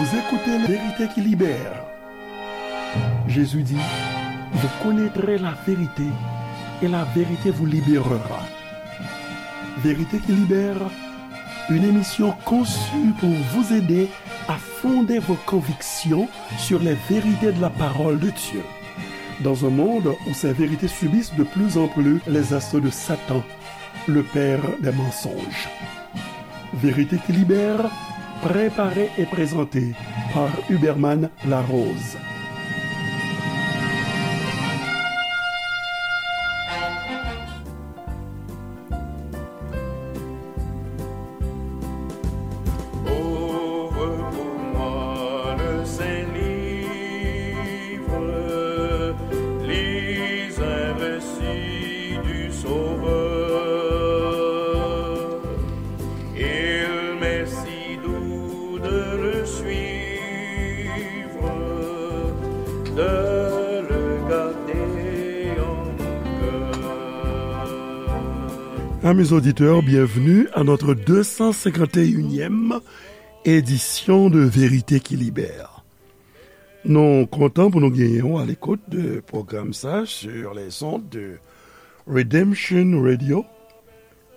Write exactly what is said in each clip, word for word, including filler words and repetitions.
Vous écoutez La Vérité qui libère. Jésus dit, vous connaîtrez la vérité et la vérité vous libérera. Vérité qui libère, une émission conçue pour vous aider à fonder vos convictions sur les vérités de la parole de Dieu. Dans un monde où ces vérités subissent de plus en plus les assauts de Satan, le père des mensonges. Vérité qui libère, préparée et présentée par Huberman Larose. Ouvre pour moi le saint livre, lis un récit du Sauveur. Il m'est si doux de le suivre, de le garder en mon cœur. Amis auditeurs, bienvenue à notre deux cent cinquante et unième édition de Vérité qui Libère. Nou kontan pou nou genyen w a l'écoute de pwogram sa sur les ondes de Redemption Radio,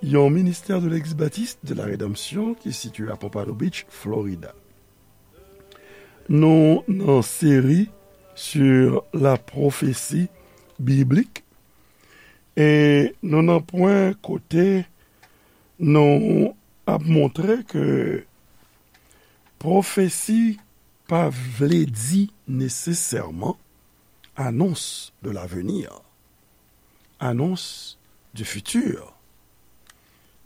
yon ministè de l'Eglise Baptiste de la Rédemption ki sitiye a Pompano Beach, Florida. Nou nan seri sur la prophétie biblique, e nou nan pwen kote nou ap montre ke pwofesi pa vle di nesesèman annonce de l'avenir, annonce du futur.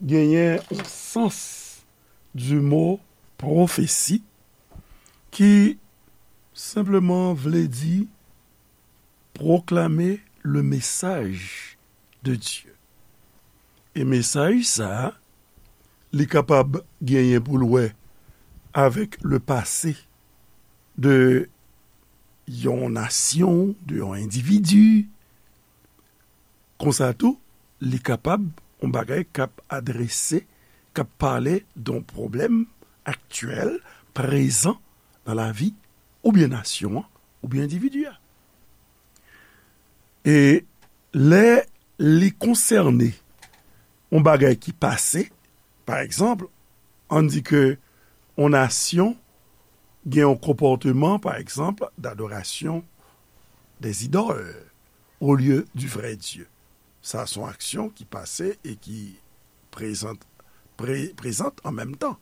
Genyen yon sans du mot prophétie ki senpleman vle di proclamer le message de Dieu. E mesaj sa a, li kapab genyen pou l wè avèk le passé de yon nasyon, de yon endividi. Konsa tou, li kapab yon bagay k ap adrese, k ap pale de yon pwoblèm aktyèl, prezan nan lavi oubyen nasyon an, oubyen endividi a. E lè li konsène yon bagay ki pase, pa egzanp, ann di ke yon nasyon gen yon konpòteman, pa egzanp, d'adoration des idoles au lieu du vrai Dieu. Sa se yon aksyon ki pase e ki prezant, pre-, prezant an menm tan.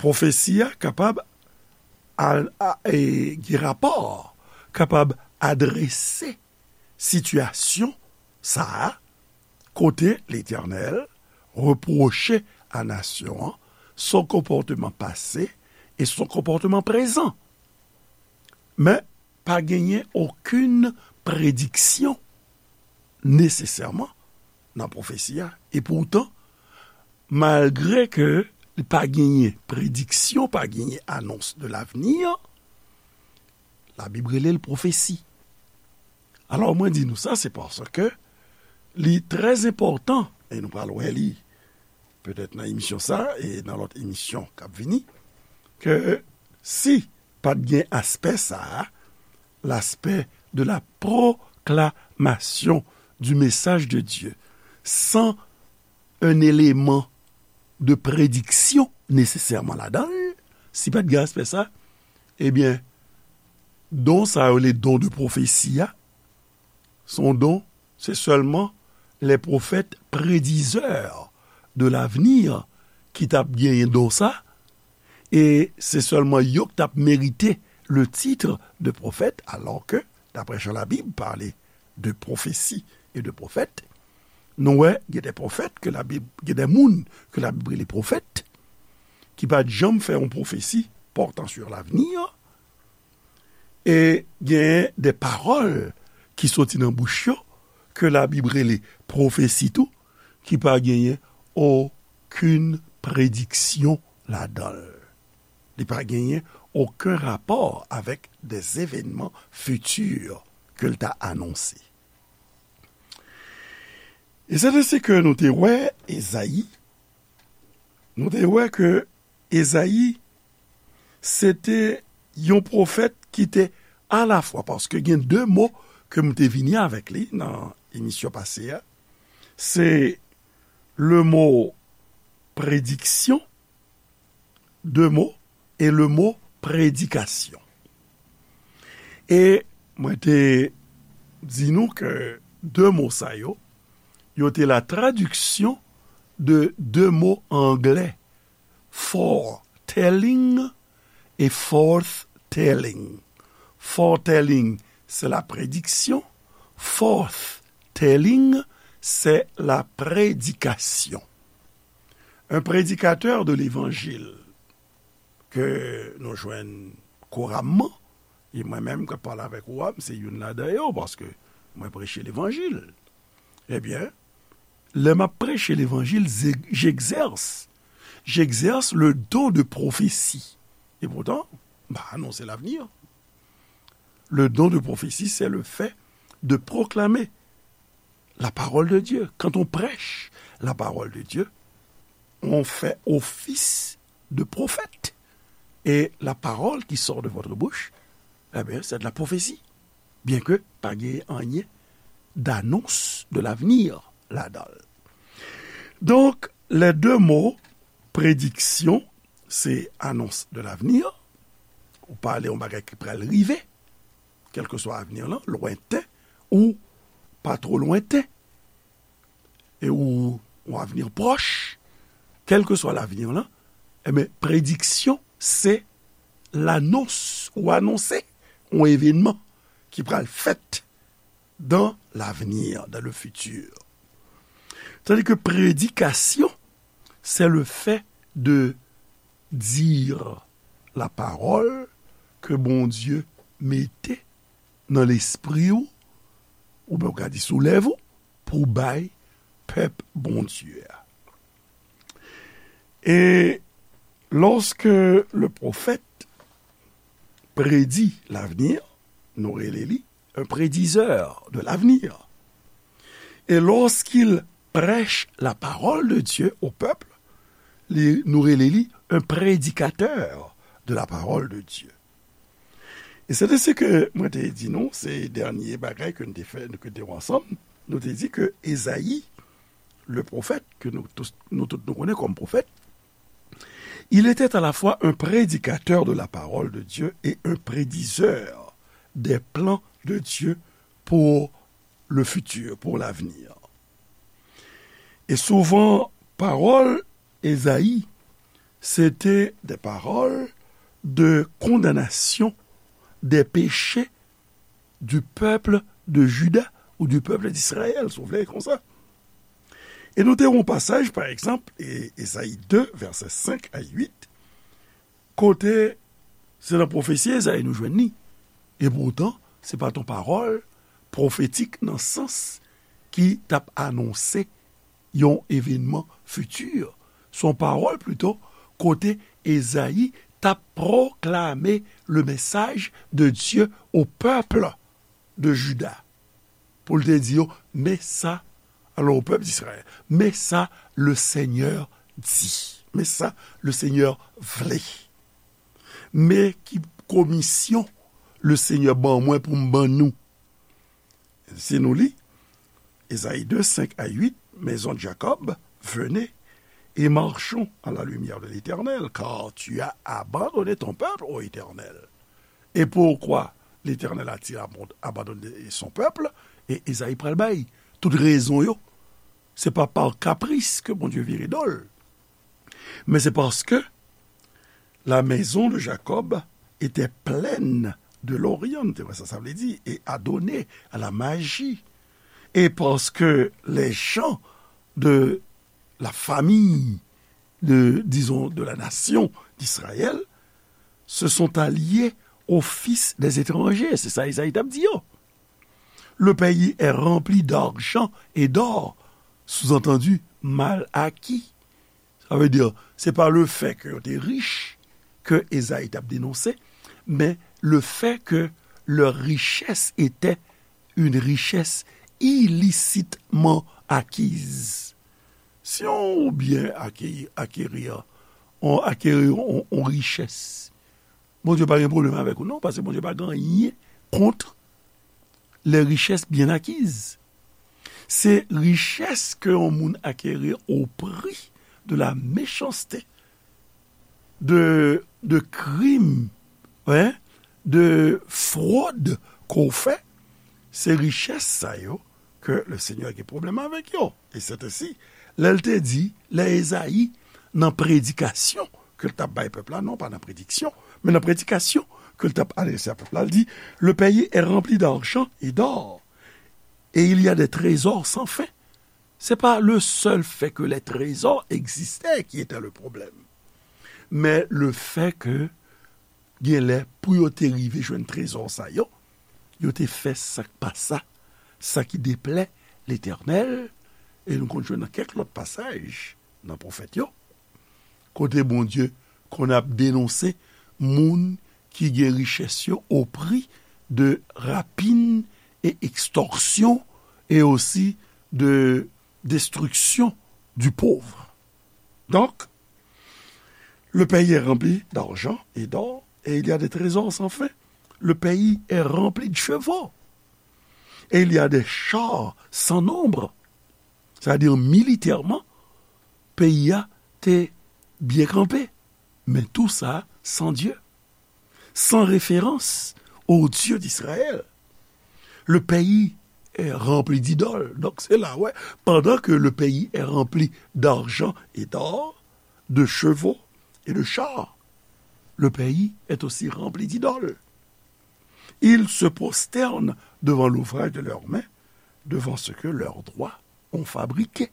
Pwofesi a kapab al-, a, e, gen rapò, kapab adrese sitiyasyon sa a, kote Letènèl repwoche a nasyon an son konpòteman pase e son konpòteman prezan. Men, pa genyen okenn prediksyon nesesèman nan pwofesi a. E poutan, malgre ke li pa genyen prediksyon, pa genyen annonce de l'avenir, Labib rele l pwofesi. Alò, mwen di nou sa, se paske li trè enpòtan, e nou pral wè li petèt nan emisyon sa, e nan lòt emisyon k ap vini, ke si pa t gen aspè sa a, l'aspect de la proclamation du message de Dieu, san un élément de prédiction nesesèman ladan l, si pa t gen aspè sa, ebyen, don sa yo, le don de pwofesi a, se yon don, se sèlman les prophètes prédiseurs de l'avenir ki t ap genyen don sa, e se sèlman yo ki t ap merite le titre de prophète, alors que, d'après Jean la Bible, parler de prophétie et de prophète, nou wè, gen de pwofèt ke Labib, gen de moun ke Labib rele pwofèt, ki pa t janm fè yon pwofesi portant sur l'avenir, e gen de pawòl ki soti nan bouch yo, ke Labib rele pwofesi tou, ki pa genyen okenn prediksyon ladan l. Li pa genyen okenn rapò avèk des événements futurs ke l ta anonse. E se de se ke nou te wè Ezayi, nou te wè ke Ezayi, se te yon pwofèt ki te alafwa, paske gen de mo ke m te vini avèk li nan emisyon pase a, se le mo prediksyon, de mo, e le mo predikasyon. E mwen te di nou ke de mo sa yo, yo te la tradiksyon de de mo anglè, foretelling e forthtelling. Foretelling, c'est la prédiction. Forthtelling, c'est la prédication. Un prédicateur de l'évangile ke nou jwenn kouramman, e mwen menm k ap pale avèk ou a, m se youn ladan yo, paske mwen preche levanjil. Ebyen, lè m ap preche levanjil, j'exerce, j'exerce le don de prophétie. Et pourtant, m pa anonse lavni. Le don de prophétie, c'est le fait de proclamer la parole de Dieu. Quand on prêche la parole de Dieu, on fait office de prophète. Et la parole qui sort de votre bouche, eh bien, c'est de la prophétie. Byenke pa gen anyen d'annonce de l'avenir ladan l. Donk, les deux mots, prédiction, c'est annonce de l'avenir. Ou pale yon bagay ki pral rive, kèlkeswa avni lan, lwenten ou pa twò lwenten, e ou yon avni pwòch, kèlkeswa lavni lan, ebyen, prediksyon, se lanons ou anonse yon evènman ki pral fèt dans l'avenir, dans le futur. Tandis que prédication, c'est le fait de dire la parole ke Bondye mete nan lespri w, oubyen w ka di sou lèv ou, pou bay pèp Bondye a. Et lorsque le prophète prédit l'avenir, nou rele li un prédiseur de l'avenir. Et lorsqu'il prêche la parole de Dieu au peuple, li, nou rele li un prédicateur de la parole de Dieu. E se de se ke mwen te di nou, se dènye bagay ke nou te fè, ke nou te wè ansanm, nou te di ke Ezayi, le pwofèt, ke nou tout, nou tout nou konnen kòm pwofèt, il était à la fois un prédicateur de la parole de Dieu et un prédiseur des plans de Dieu pour le futur, pour l'avenir. Et souvent, parole Ezayi, c'était des paroles de condamnation des péchés du peuple de Juda ou du peuple d'Israël, si w vle konsa. E nou te wè yon pasaj, pa egzanp, e, Ezayi de, vèsè senk a uit, kote se nan pwofesi Ezayi nou jwenn li. E poutan, se pa t yon pawòl pwofetik nan sans ki t ap anonse yon evènman fiti. Se yon pawòl plito kote Ezayi t ap pwoklame le message de Dieu au peuple de Juda. Pou l te di yo, men sa, alò, au peuple d'Israël, men sa le Senyè di. Men sa le Senyè vle. Men ki komisyon le Senyè ban mwen pou m ban nou. Si nou li, Ezayi de, senk a uit, maison de Jacob, venez et marchons à la lumière de l'Éternel, car tu as abandonné ton peuple, ô Éternel. Et pourquoi l'Éternel a-t-il abon-, abandonné son peuple? E Ezayi pral bay tout rezon yo. Se pa pa kapris ke Bondye vire do l. Men se paske la maison de Jacob était pleine de l'Orient, nou te wè sa, sa vle di, et adonnée à la magie. Et parce que les gens de la famille de, disons, de la nation d'Israël se sont alliés aux fils des étrangers. Se sa Ezayi t ap di yo. Le pays est rempli d'argent et d'or, sous-entendu, mal acquis. Sa vle di, se pa le fait que yo te rich ke Ezayi t ap denonse, men le fait que leur richesse était une richesse illicitement acquise. Si yon byen acquérir, acquérir, on acquérir on, on richès, Bondye pa gen pwoblèm avèk ou non, paske Bondye pa gen anyen kont les richesses bien acquises. Se richès ke yon moun acquérir au prix de la méchanceté, de, de krim, hein, de frod ke w fè, se richès sa yo ke le Senyè gen pwoblèm avèk yo. E se te si, lè l te di, lè Ezayi, nan predikasyon ke l t ap bay pèp la, non pa nan prediksyon, men nan predikasyon ke l t ap adrese a pèp la, l di, le pays est rempli d'argent et d'or, et il y a des trésors sans fin. C'est pas le seul fait que les trésors existaient qui était le problème, mais le fait que genlè, pou yo te rive jwenn trezò sa yo, yo te fè sa k pa sa, sa ki deplè Letènèl, e nou konn jwenn nan kèk lòt pasaj nan pwofèt yo, kote Bondye konn ap denonse moun ki gen richès yo au prix de rapine et extorsion et aussi de destruction du pauvre. Donc, le pays est rempli d'argent et d'or, et il y a des trésors sans fin. Le pays est rempli de chevaux, et il y a des chars sans nombre. Sa vle di, militèman, peyi a te byen kanpe, men tou sa san Dye, sans référence au Dieu d'Israël. Le pays est rempli d'idoles. Donc, c'est là, ouais, pendant que le pays est rempli d'argent et d'or, de chevaux et de chars, le pays est aussi rempli d'idoles. Ils se prosternent devant l'ouvrage de leurs mains, devant ce que leurs doigts ont fabriqué.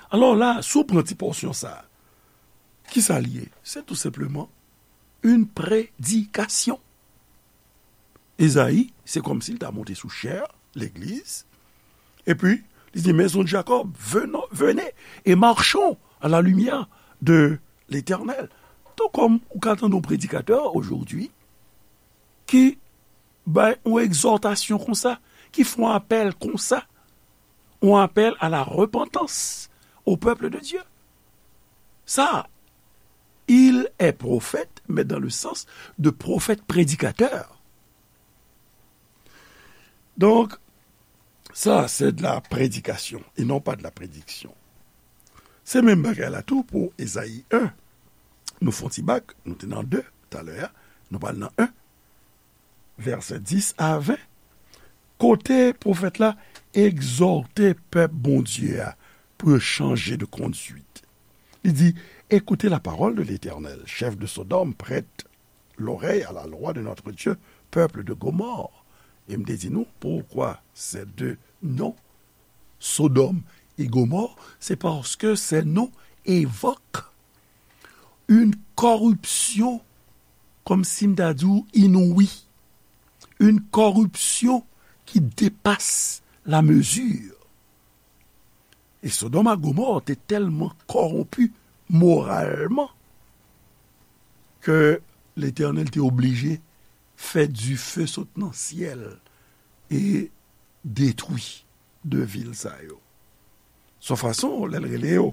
Alò la, si w pran ti pòsyon sa a, ki sa l ye? Se tou senpleman yon predikasyon. Ezayi, se kòmsi l ta monte sou chè, legliz, epi li di, Maison de Jacob, venons, venez et marchons à la lumière de l'Éternel. Tou kòm ou ka tande yon predikatè aujourd'hui ki bay yon egzòtasyon konsa, ki fè yon apèl konsa, yon apèl à la repentance au peuple de Dieu. Ça, il est prophète, mais dans le sens de prophète prédicateur. Donc, ça, c'est de la prédication et non pas de la prédiction. Se menm bagay la tou pou Ezayi en. Nou fè yon ti bak, nou te nan de talè a, nou pral nan en. Vèsè dis a ven, kote pwofèt la egzòte pèp Bondye a pou yo chanje de conduite. Li di, Écoutez la parole de l'Éternel, chef de Sodome, prête l'oreille à la loi de notre Dieu, peuple de Gomorrhe. E m te di nou, pourquoi ces deux noms, Sodome et Gomorrhe, c'est parce que ces noms évoquent une corruption, kòmsi m ta di w, inouïe, une corruption qui dépasse la mesure. E Sodòm ak Gomò te tèlman kòwonpi moralman ke Letènèl te oblije fè dife sot nan syèl e detwi de vil sa yo. Son fason, lè l rele yo,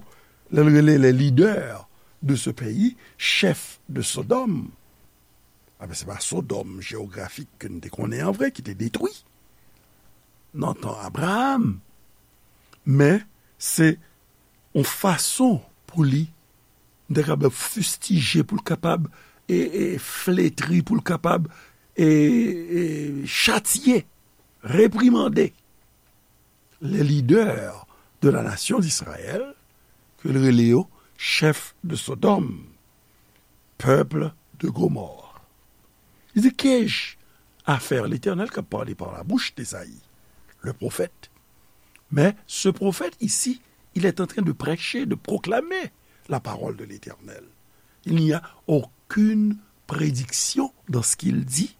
lè l rele les leaders de ce pays, chef de Sodome, a ben, se pa Sodòm jewografik ke n te konnen an vre ki te detwi nan tan Abraram, men se yon fason pou li, m ta kapab fistije, pou l kapab, e, e, fletri, pou l kapab, e, e, chatye, reprimande les leaders de la nation d'Israël, ke l rele yo chef de Sodòm, peuple de Gomorrhe. Li di, Qu'ai-je à faire? L'Éternel k ap pale par la bouche d'Ésaïe, le prophète. Mais ce prophète ici, il est en train de prêcher, de proclamer la parole de l'Éternel. Il n'y a aucune prédiction dans ce qu'il dit,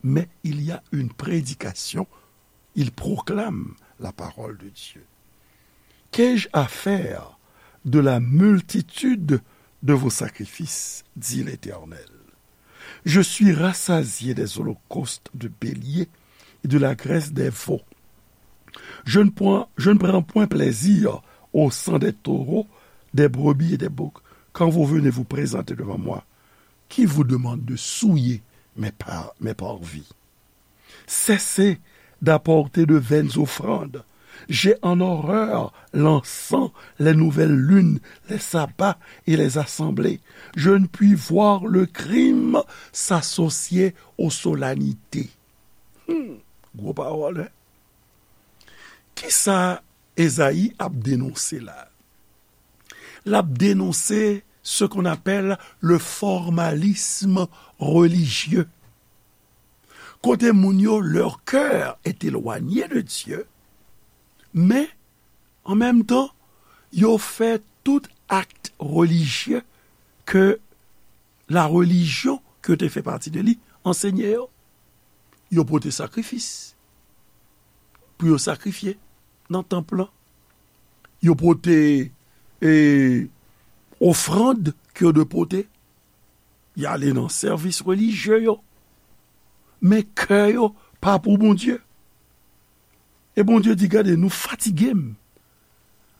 mais il y a une prédication. Il proclame la parole de Dieu. Qu'ai-je à faire de la multitude de vos sacrifices, dit l'Éternel. Je suis rassasié des holocaustes de béliers et de la graisse des veaux. Je ne prends, je ne prends point plaisir au sang des taureaux, des brebis et des boucs. Quand vous venez vous présenter devant moi, qui vous demande de souiller mes par-, mes parvis ? Cessez d'apporter de vaines offrandes. J'ai en horreur l'encens, les nouvelles lunes, les sabbats et les assemblées. Je ne puis voir le crime s'associer aux solennités. Hmm, gwo pawòl, wi. Kisa Ezayi ap denonse la? L ap denonse ce qu'on appelle le formalisme religieux. Kote moun yo, leur cœur est éloigné de Dieu, men an menm tan, yo fè tout akt relijye ke la religion ke yo te fè pati de li ansenye yo. Yo pote sakrifis pou yo sakrifye nan tanp lan. Yo pote, e, ofrann ke yo dwe pote. Y ale nan sèvis relijye yo. Men kè yo pa pou Bondye. E Bondye di, "Gade, nou fatige m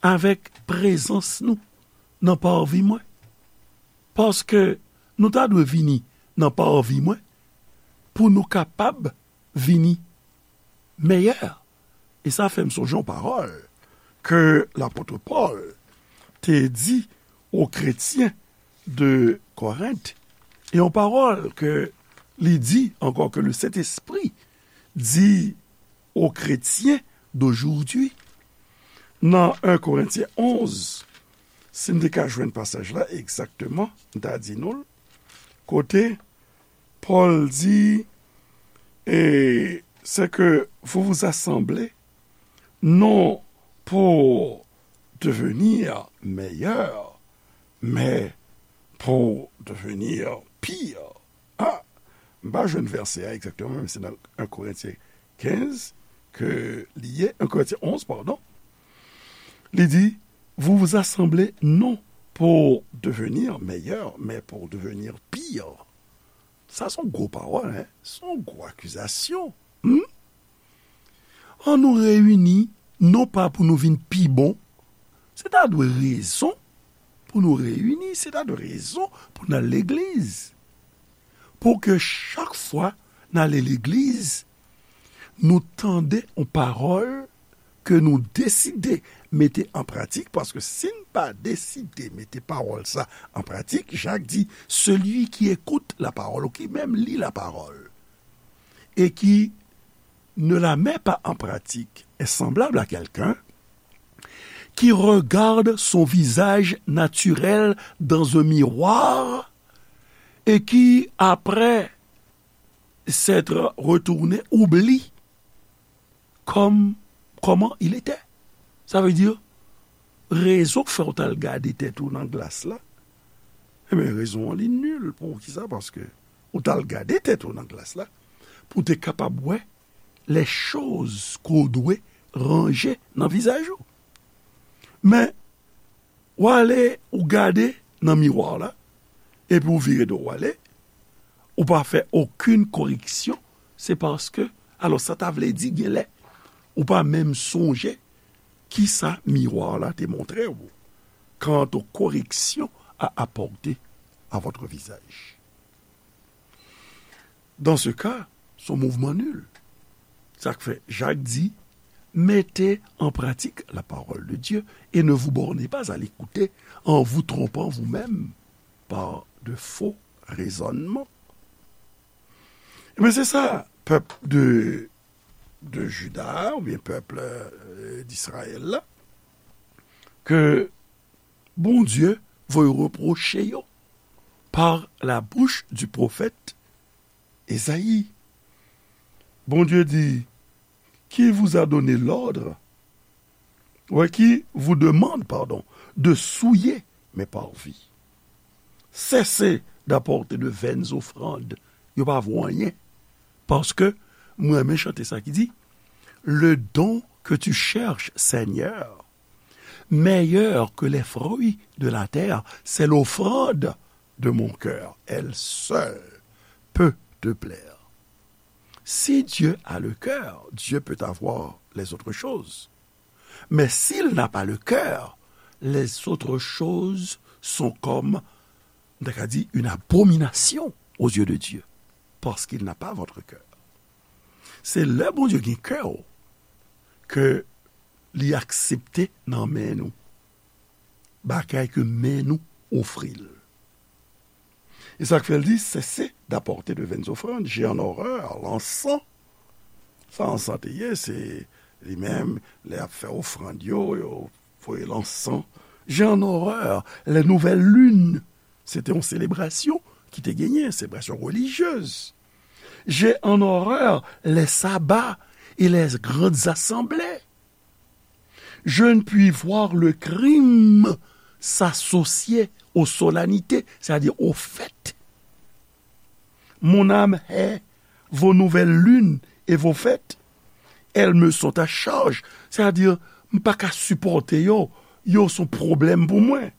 avèk prezans nou nan parvi mwen. Paske nou ta dwe vini nan parvi mwen pou nou kapab vini meyè." E sa fè m sonje yon pawòl ke lapot Pòl te di o kretyen de Korent. E yon pawòl ke li di ankò, ke le Sentespri di o kretyen dojoujoudi. Nan en Korentyen onz, si n te ka jwenn pasaj la egzakteman, m ta di nou l, kote Pòl di, e, c'est que vous vous assemblez non pour devenir meilleur, mais pour devenir pire. Ah, m pa jwenn vèsè a egzakteman, men se nan en Korentyen kenz ke li ye, en Korentyen onz, padon. Li di, vous vous assemblez non pour devenir meilleur, mais pour devenir pire. Sa se yon gwo pawòl, en. Se yon gwo akizasyon. Hmm? An nou reyini, non pa pou nou vin pi bon. Se ta dwe rezon pou nou reyini, se ta dwe rezon pou n al legliz. Pou ke chak fwa n ale legliz, nou tande yon pawòl ke nou deside mete an pratik, paske si n pa deside mete pawòl sa an pratik, Jak di, celui qui écoute la parole, ou ki menm li la parole, et qui ne la met pas en pratique est semblable à quelqu'un qui regarde son visage naturel dans un miroir et qui, après s'être retourné, oublie comme, comment il était. Sa vle di, rezon k fè w t al gade tèt ou nan glas la, ebyen, rezon an li nil. Poukisa? Paske ou t al gade tèt ou nan glas la pou w te kapab wè les choses ke w dwe ranje nan vizaj ou. Men, w ale, ou gade nan miwa la, epi w vire do w ale, ou pa fè okenn koreksyon, se paske, alò, sa ta vle di, genlè, ou pa menm sonje kisa miwa la te montre w. Quant aux corrections à apporter à votre visage. Dans ce cas, se yon mouvman nil. Sa k fè Jak di, mettez en pratique la parole de Dieu et ne vous bornez pas à l'écouter en vous trompant vous-même par de faux raisonnements. Ebyen, se sa, pèp de, de Juda, oubyen pèp, euh, d'Israël la, ke Bondye voye repwoche yo par la bouche du prophète Esaïe. Bondye di, qui vous a donné l'ordre, ouais, qui vous demande, pardon, de souiller mes parvis. Cessez d'apporter de vaines offrandes. Yo pa vo anyen. Paske, mwen renmen chante sa ki di, le don que tu cherches, Seigneur, meilleur que les fruits de la terre, c'est l'offrande de mon cœur. Elle seule peut te plaire. Si Dieu a le cœur, Dieu peut avoir les autres choses. Mais s'il n'a pas le cœur, les autres choses sont comme m ta ka di, une abomination aux yeux de Dieu, parce qu'il n'a pas votre cœur. Se lè Bondye gen kè w ke li aksepte nan men nou bagay ke men nou ofri l. E sa k fè l di, cessez d'apporter de vaines offrandes, j'ai en horreur l'encens. Sa ansan te ye, se li menm, lè y ap fè ofrann yo, yo voye lansan. J'ai en horreur les nouvelles lunes. Se te yon selebrasyon ki te genyen, selebrasyon relijyez. J'ai en horreur les sabbats et les grandes assemblées. Je ne puis voir le crime s'associer aux solennités, c'est-à-dire aux fêtes. Mon âme hait vos nouvelles lunes et vos fêtes. Elles me sont à charge, c'est-à-dire, m pa ka sipòte yo, yo se yon pwoblèm pou mwen.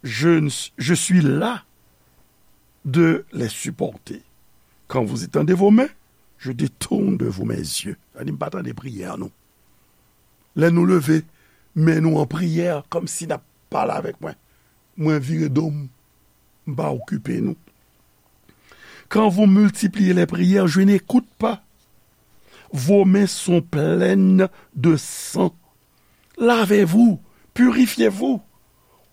Je, je suis las de les supporter. Quand vous étendez vos mains, je détourne de vous mes yeux. Sa di, m pa tande priyè nou. Lè nou leve men nou an priyè, kòmsi n ap pale avèk mwen, mwen vire do m, m pa okipe nou. Quand vous multipliez les prières, je n'écoute pas. Vos mains sont pleines de sang. Lavez-vous, purifiez-vous.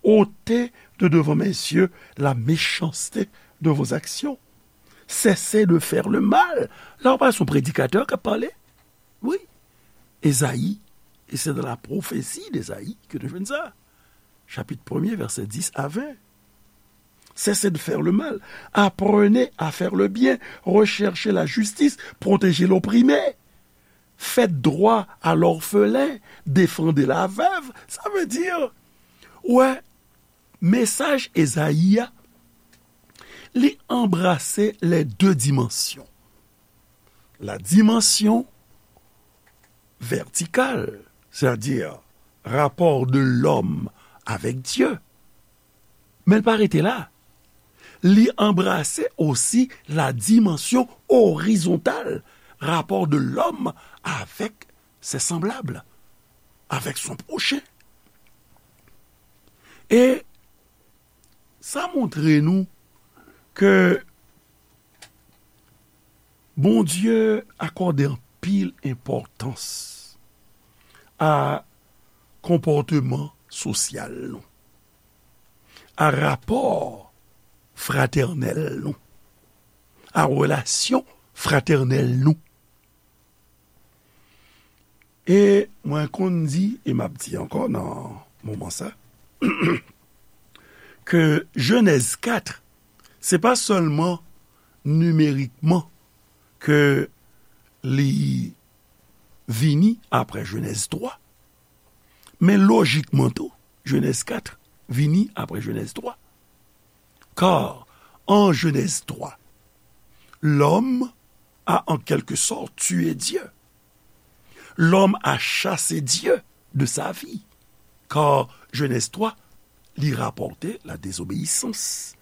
Ôtez de devant mes yeux la méchanceté de vos actions. Cessez de faire le mal. La, w pa se yon predikatè k ap pale. Wi. Ezayi, et c'est dans la prophétie d'Ésaïe que nou jwenn sa. Chapitre premier, versets dix à vingt. Cessez de faire le mal. Apprenez à faire le bien. Recherchez la justice. Protégez l'opprimé. Faites droit à l'orphelin. Défendez la veuve. Sa vle di, wè, mesaj Ezayi a, li anbrase les deux dimensions. La dimension verticale, c'est-à-dire rapport de l'homme avec Dieu. Men l pa rete la. Li anbrase osi la dimension horizontale, rapport de l'homme avec ses semblables, avec son prochain. E sa montre nou ke Bondye akòde anpil enpòtans a konpòteman sosyal nou, a rapò fratènèl nou, a relasyon fratènèl nou. E mwen konn di, e m ap di ankò nan moman sa, ke Jenèz kat, se pa sèlman nimerikman ke li vini apre Jenèz twa, men lojikman tou, Jenèz kat vini apre Jenèz twa. Car en Genèse trois, l'homme a en quelque sorte tué Dieu. L'homme a chassé Dieu de sa vie. Car Genèse trois, li rapòte la désobéissance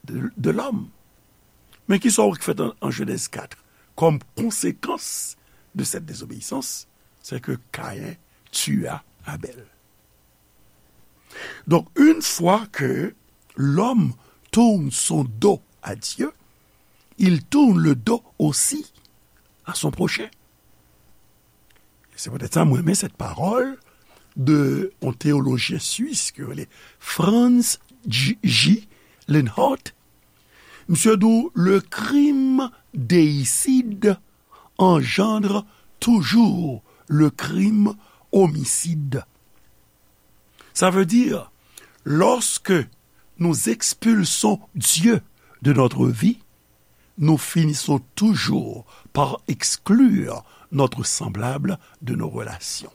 de, de l'homme. Men kisa w wè k fèt an, an Genèse quatre? Comme conséquence de cette désobéissance, c'est que Caïn tua Abel. Donc, une fois que l'homme tourne son dos à Dieu, il tourne le dos aussi à son prochain. Se poutèt sa mwen renmen cette parole de yon théologien suisse ki rele Franz J. J. Lenhardt. Misye di w, le crime déicide engendre toujours le crime homicide. Ça veut dire, lorsque nous expulsons Dieu de notre vie, nous finissons toujours par exclure notre semblable de nos relations.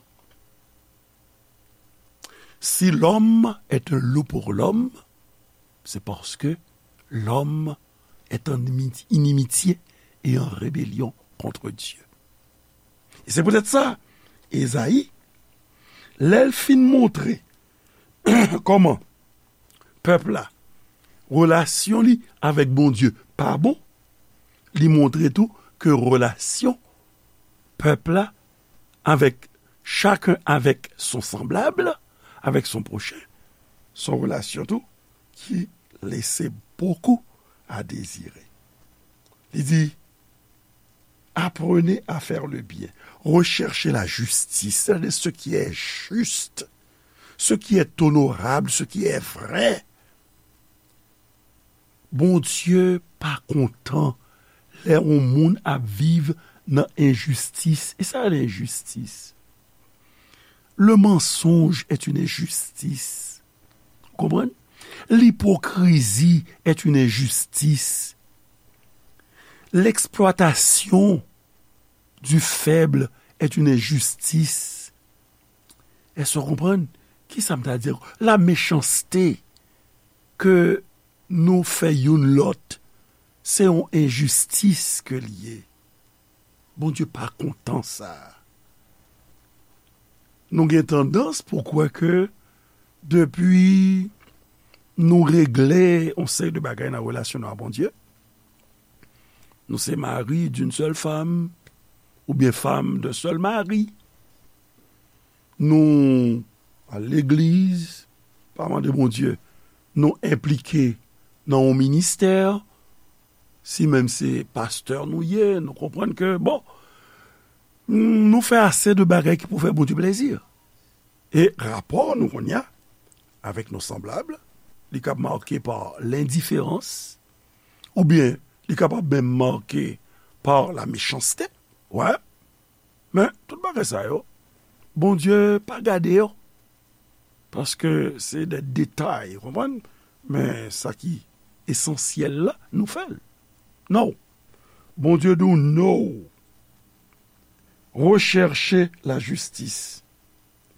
Si l'homme est un loup pour l'homme, c'est parce que l'homme est en inimitié et en rébellion contre Dieu. E se poutèt sa, Ezayi, lè l fin montre kòman pèp la, relasyon li avèk Bondye pa bon, li montre tou ke relasyon pèp la avèk chacun avec son semblable, avec son prochain, Se yon relasyon tou ki lese bokou a dezire. Li di, apprenez à faire le bien, recherchez la justice, c'est-à-dire ce qui est juste, ce qui est honorable, ce qui est vrai. Bondye pa kontan lè yon moun ap viv nan enjistis. E sa, lenjistis? Le mensonge est une injustice. Ou konprann? Lipokrizi est une injustice. L'exploitation du faible est une injustice. Èske w konprann? Kisa m ta di? La mechanste ke nou fè youn lòt, se yon enjistis ke l ye. Bondye pa kontan sa. Nou gen tandans pou kwè ke depi nou regle yon seri de bagay nan relasyon nou a Bondye, nou se mari d'une seule femme, oubyen femme d'un seul mari, nou al legliz, pa mande Bondye, nou enplike nan yon ministè, si menm se pastè nou ye, nou konprann ke, bon, nou fè ase de bagay ki pou fè Bondye plezi. E rapò nou kounye a avèk nou sanblab, li kab make pa lendiferans, oubyen li kapab menm make pa la mechanste. Wè. Men, tout bagay sa yo, Bondye pa gade yo. Paske se de detay, ou konprann? Men sa ki esansyèl la, nou fè l. Non. Bondye di w, no. Recherchez la justice.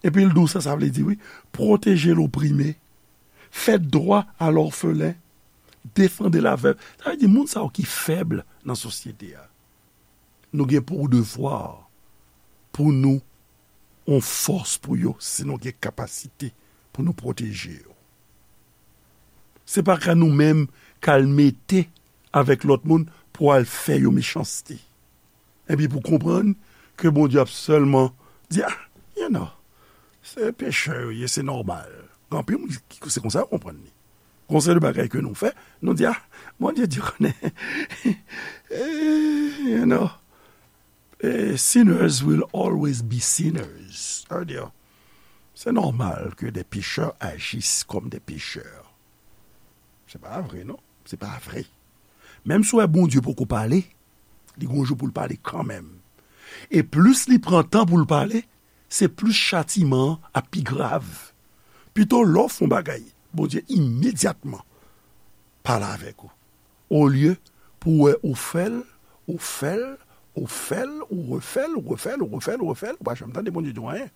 Epi l di w sa, sa vle di, wi, protéger l'opprimé, faites droit à l'orphelin, défendez la veuve. Sa vle di, moun sa yo ki fèb nan sosyete a, nou gen pou devwa pou nou yon fòs pou yo, si nou gen kapasite pou nou pwoteje yo. Se pa ka nou menm k al mete avèk lòt moun pou al fè yo mechanste. Epi pou konprann ke Bondye ap sèlman di, ah, you know, se pechè yo ye, se nòmal. Gen anpil moun ki se konsa yo konprann li. Gon seri de bagay ke nou fè, nou di, ah, Bondye di konnen, eh, you know, eh, sinners will always be sinners. Sa vle di, se nòmal ke des pécheurs agissent comme des pécheurs. Se pa vre, non. Se pa vre. Menm si w wè Bondye poko pale, li gon jou pou l pale kanmenm. E plis li pran tan pou l pale, se plis chatiman an ap pi grav. Pito lè w fè yon bagay, Bondye imedyatman pale avèk ou. Olye pou w wè ou fè l, ou fè l, ou fè l, ou refè l, ou refè l, ou refè l, ou refè l, ou pa janm tande Bondye di w anyen.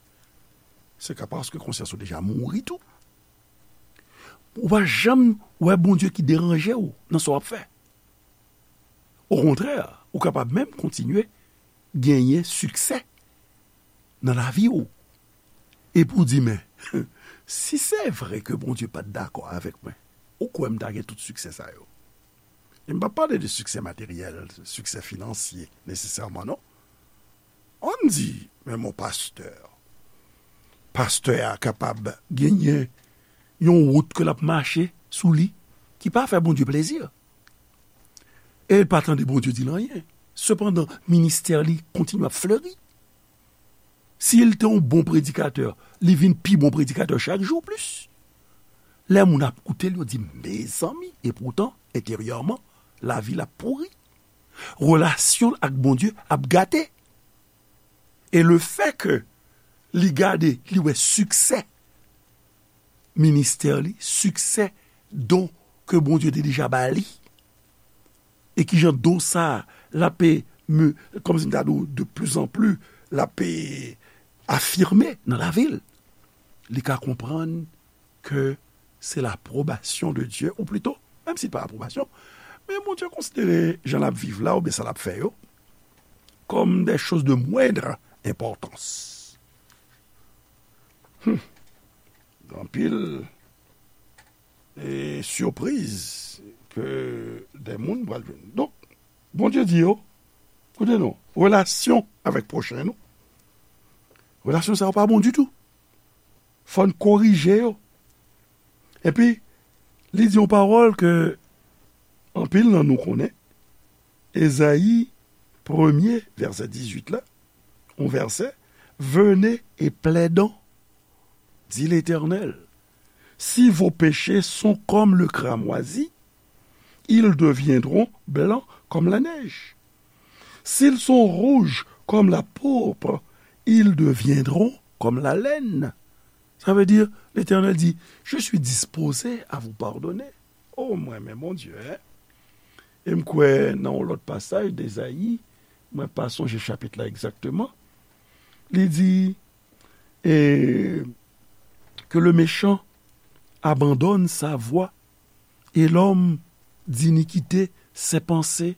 Se ka paske konsyans ou deja mouri tou. Ou pa janm wè Bondye ki deranje w nan sa w ap fè. Okontrè, ou kapab menm kontinye genyen siksè nan lavi w. Epi w di, men, si se vre ke Bondye pa t dakò avèk mwen, ou kwè m ta gen tout siksè sa yo? E m p ap pale de siksè materyèl, siksè finansye, nesesèman, non. Ann di, men mon pastè, pastè a kapab genyen yon wout ke l ap mache sou li ki pa fè Bondye plezi. E l pa tande Bondye di l anyen. Sepandan, ministè li kontinye ap fleri. Si l te yon bon predikatè, li vin pi bon predikatè chak jou plis. Lè moun ap koute l, yo di, mezanmi, epoutan, enteryèman, lavi l ap pouri. Relasyon l ak Bondye ap gate. E lefètke li gade, li wè siksè ministè li, siksè don ke Bondye te deja ba li, e kijan don sa a, l ape, kòmsi m ta di w, de plus en plus, l ape afime nan lavi l. Li ka konprann ke se lapwobasyon de Dye, ou plito, menm si l pa apwobasyon, men Bondye konsidere jan l ap viv la, oubyen sa l ap fè yo, comme des choses de moindre importance. Hmm. Gen anpil, e, sipriz ke de moun pral jwenn. Donk, Bondye di yo, koute non, relasyon avèk pwochen nou, relasyon sa yo pa bon ditou. Fò n korije yo. Epi, li di yon pawòl ke anpil nan nou konnen, Ezayi premye, vèsè dizuit la, yon vèsè, Venez et plaidons, dit l'Éternel. Si vos péchés sont comme le cramoisi, ils deviendront blancs comme la neige. S'ils sont rouges comme la pourpre, ils deviendront comme la laine. Ça veut dire, Letènèl di, je suis disposé à vous pardonner. O, mwen, men Bondye, en. E m kwè nan yon lòt pasaj de Ezayi, mwen pa sonje chapit la egzakteman, li di, et que le méchant abandonne sa voie, et l'homme d'iniquité ses pensées,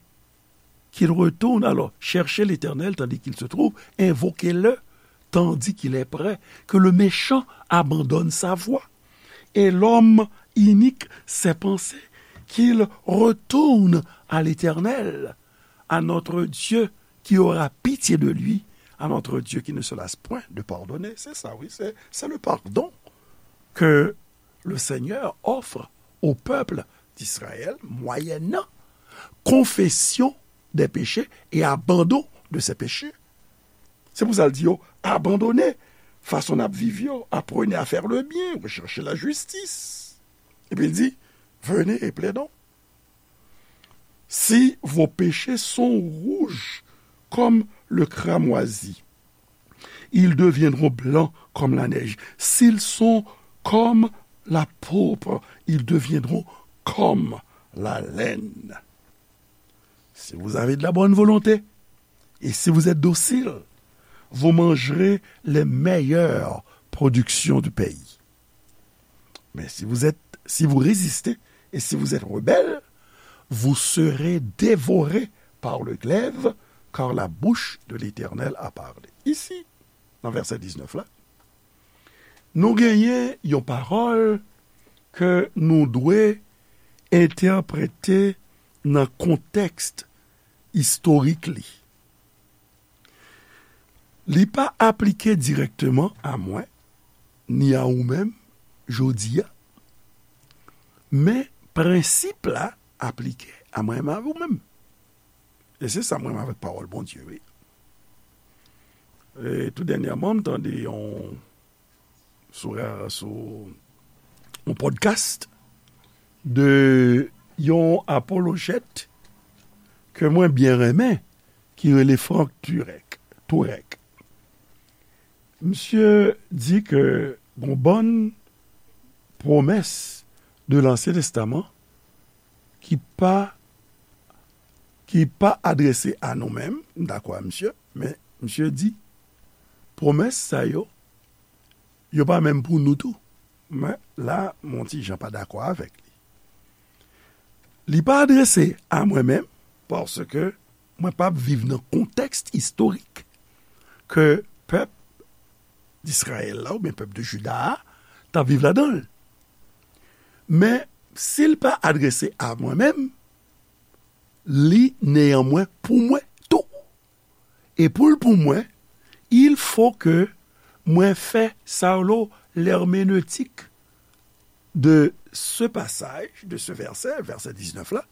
qu'il retourne alors chercher l'Éternel tandis qu'il se trouve, invoquez-le tandis qu'il est près, que le méchant abandonne sa voie, et l'homme inique ses pensées, qu'il retourne à l'Éternel, à notre Dieu qui aura pitié de lui, à notre Dieu qui ne se lasse point de pardonner. C'est ça, oui, c'est, c'est le pardon que le Seigneur offre au peuple d'Israël, moyennant confession des péchés et abandon de ses péchés. Se pou sa l di yo, abandone fason n ap viv yo, apprenez à faire le bien, recherchez la justice. Epi l di, venez et plaidons. Si vos péchés sont rouges comme le cramoisi, ils deviendront blancs comme la neige. S'ils sont comme la pourpre, ils deviendront comme la laine. Si vous avez de la bonne volonté et si vous êtes docile, vous mangerez les meilleures productions du pays. Mais si vous êtes, si vous résistez et si vous êtes rebelles, vous serez dévorés par le glaive, car la bouche de l'Éternel a parlé. Ici, nan vèsè diznèf la, nou genyen yon pawòl ke nou dwe entèprete nan kontèks istorik li. Li pa aplike dirèkteman a mwen, ni a ou menm, jodi a, men prensip la aplike a mwen menm, a ou menm. E se sa m renmen avèk pawòl Bondye, wi. E tou dènyèman, m tande yon, sou, sou yon podcast de yon apolojèt ke mwen byen renmen, ki rele Frank Turek. Turek. Misye di ke gon bann pwomès de Lansyen Testaman ki pa, ki pa adrese a nou menm, m dakò a misye, men misye di, pwomès sa yo, yo pa menm pou nou tou. Men la, m on ti jan pa dakò avèk li. Li pa adrese a mwen menm, paske mwen p ap viv nan kontèks istorik ke pèp Izrayèl la, oubyen pèp de Jida a, t ap viv ladan l. Men, si l pa adrese a mwen menm, li néanmoins pou mwen tou. E pou l pou mwen, il faut que mwen fè sa yo l'herméneutique de ce passage, de ce verset, vèsè diznèf la,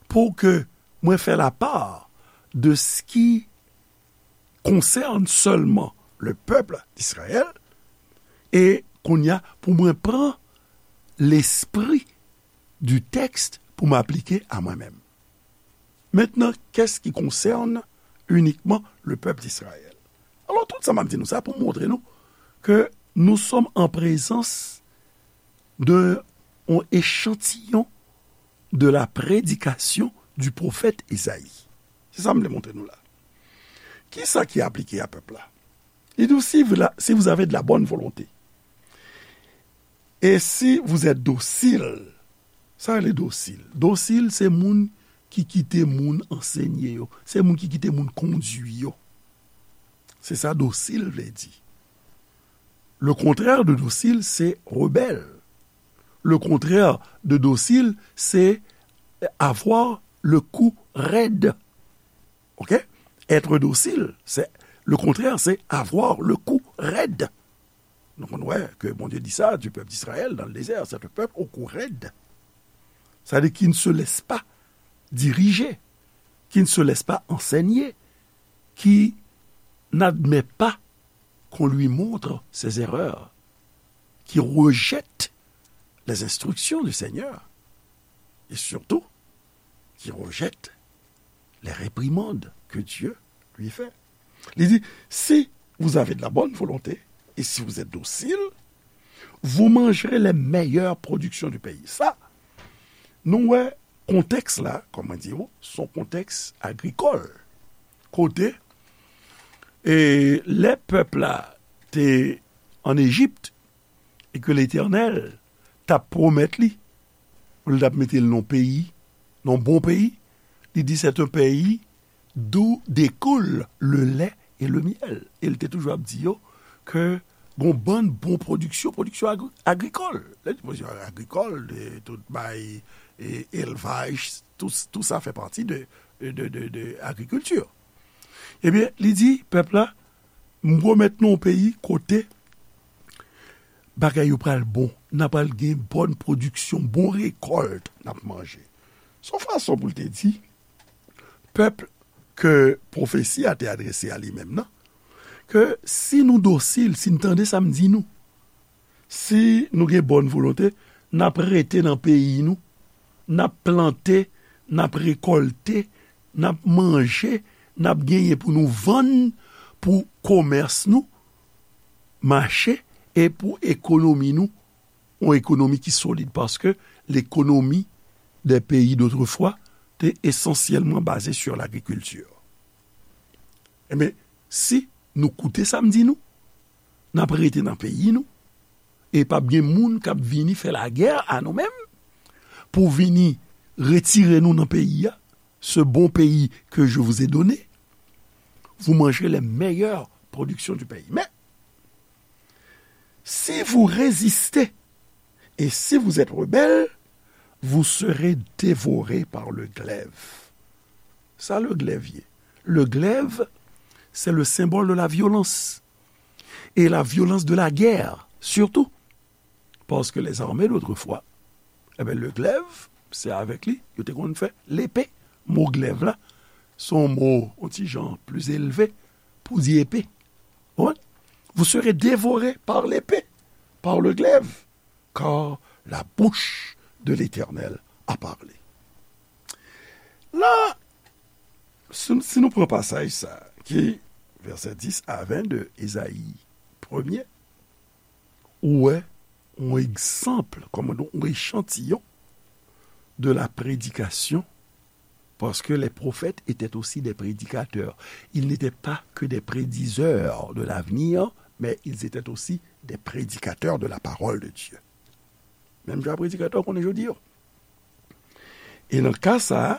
pou ke mwen fè la part de ce qui concerne seulement le peuple d'Israël, e kounye a, pou mwen pran lespri du texte pou m aplike a mwen menm. Maintenant, qu'est-ce qui concerne uniquement le peuple d'Israël? Alò, tout sa m ap di nou sa pou montre nou ke nous sommes en présence de yon echantiyon de la prédication du prophète Esaïe. Se sa m vle montre nou la. Kisa ki aplike a pèp la? Li di, si vous la, si vous avez de la bonne volonté, et si vous êtes docile, sa rele dosil. Dosil, se moun ki kite moun ansenye yo. Se moun ki kite moun kondui yo. Se sa dosil vle di. Le contraire de docile, c'est rebelle. Le contraire de docile, c'est avoir le cou raide. Ok? Être docile, c'est, le contraire, c'est avoir le cou raide. Nou konn wè ke Bondye di sa du peuple d'Israël dans le désert, c'est un peuple au cou raide. C'est-à-dire qui ne se laisse pas diriger, qui ne se laisse pas enseigner, qui n'admet pas qu'on lui montre ses erreurs, qui rejette les instructions du Seigneur et surtout qui rejette les réprimandes que Dieu lui fait. Li di, si vous avez de la bonne volonté et si vous êtes docile, vous mangerez les meilleures productions du pays. Sa, nou wè kontèks la, kòman di w, se yon kontèks agrikòl. Kote, e, lè pèp la te an Ejip, e ke Letènèl t ap pwomèt li, pou l t ap mete l nan peyi, nan bon peyi, li di, c'est un pays d'où découle le lait et le miel. E l te toujou ap di yo ke gon bann bon pwodiksyon, pwodiksyon agri-, agrikòl. Lè di pwodiksyon agrikòl, de tout bay, e, elvaj, tout, tout sa fè pati de, de, de, de agrikilti. Ebyen, li di, pèp la, m pwomèt nou yon peyi kote bagay yo pral bon, n a pral gen bòn pwodiksyon, bon rekòlt n ap manje. Se yon fason pou l te di, pèp ke pwofesi a te adrese a li menm nan, ke si nou dosil, si n tande sa m di nou, si nou gen bòn volonte, n ap rete nan peyi nou, n ap plante, n ap rekòlte, n ap manje, n ap genyen pou nou vann, pou komès nou mache, e pou ekonomi nou, yon ekonomi ki solid, paske l'économie des pays d'autrefois te esansyèlman baze sur l'agriculture. Ebyen, si nou koute sa m di nou, n ap rete nan peyi nou, e p ap gen moun k ap vini fè lagè a nou menm, pou vini retire nou nan peyi a, ce bon pays que je vous ai donné, vous mangerez les meilleures productions du pays. Mais, si vous résistez et si vous êtes rebelles, vous serez dévorés par le glaive. Sa le glèv ye? Le glèv, c'est le symbole de la violence. Et la violence de la guerre, surtout. Parce que les armées d'autrefois, eh ben, le glaive, c'est avec li, yo te konn fè lepe. Mo glèv la, se yon mo, yon ti jan pli elve pou di epe. Ou konprann? Vous serez dévorés par l'épée, par le glaive, car la bouche de l'Éternel a parlé. La, si, si nou pran pasaj sa, ki vèsè dis a ven de Ezayi premye, ou wè yon egzanp, kòman di, yon echantiyon de la prédication, parce que les prophètes étaient aussi des prédicateurs. Ils n'étaient pas que des prédiseurs de l'avenir, mais ils étaient aussi des prédicateurs de la parole de Dieu. Menm jan a predikatè w konnen jodi a. E nan ka sa a,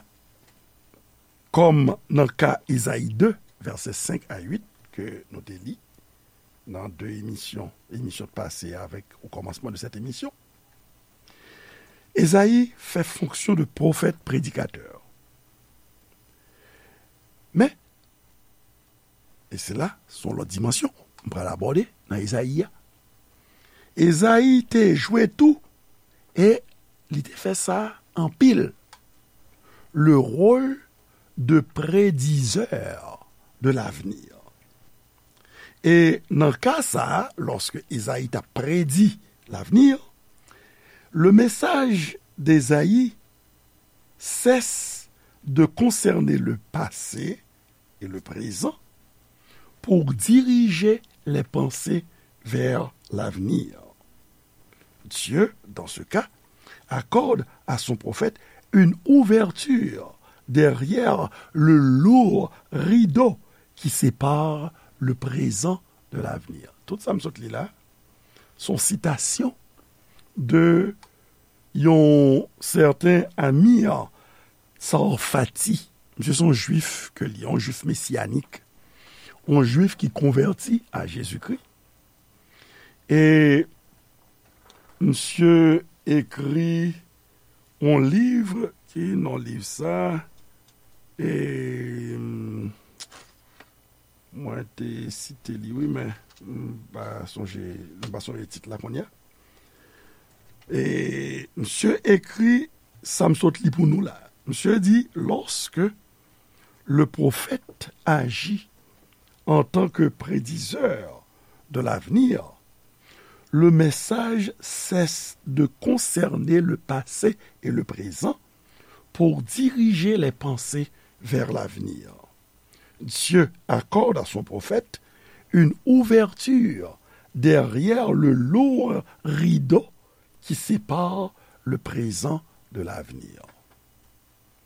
kòm nan ka Ezayi de, vèsè senk a uit, ke nou te li nan de emisyon, emisyon pase avèk o kòmansman de sèt emisyon, Ezayi fè fonksyon de pwofèt predikatè. Men, e se la, se yon lòt dimansyon m pral abòde nan Ezayi a. Ezayi te jwe tou, e li te fè sa anpil, le rôle de prédiseur de l'avenir. E nan ka sa a, lòske Ezayi t ap predi l'avenir, le message d'Ezayi cesse de concerner le passé et le présent pour diriger les pensées vers l'avenir. Dieu, dans ce cas, accorde à son prophète une ouverture derrière le lourd rideau qui sépare le présent de l'avenir. Tout sa m sot li la, se yon sitasyon de yon sèten Amir Tsarfati. Misye se yon jwif ke li, yon jwif mesiyanik, yon jwif ki konvèti a Jezikri. E misye ekri yon liv, ki non liv sa? E, Mwen te site li, wi, men m pa sonje, m pa sonje tit la kounye a. E misye ekri sa m sot li pou nou la. Misye di, lorsque le prophète agit en tant que prédiseur de l'avenir, le message cesse de concerner le passé et le présent pour diriger les pensées vers l'avenir. Dieu accorde à son prophète une ouverture derrière le lourd rideau qui sépare le présent de l'avenir.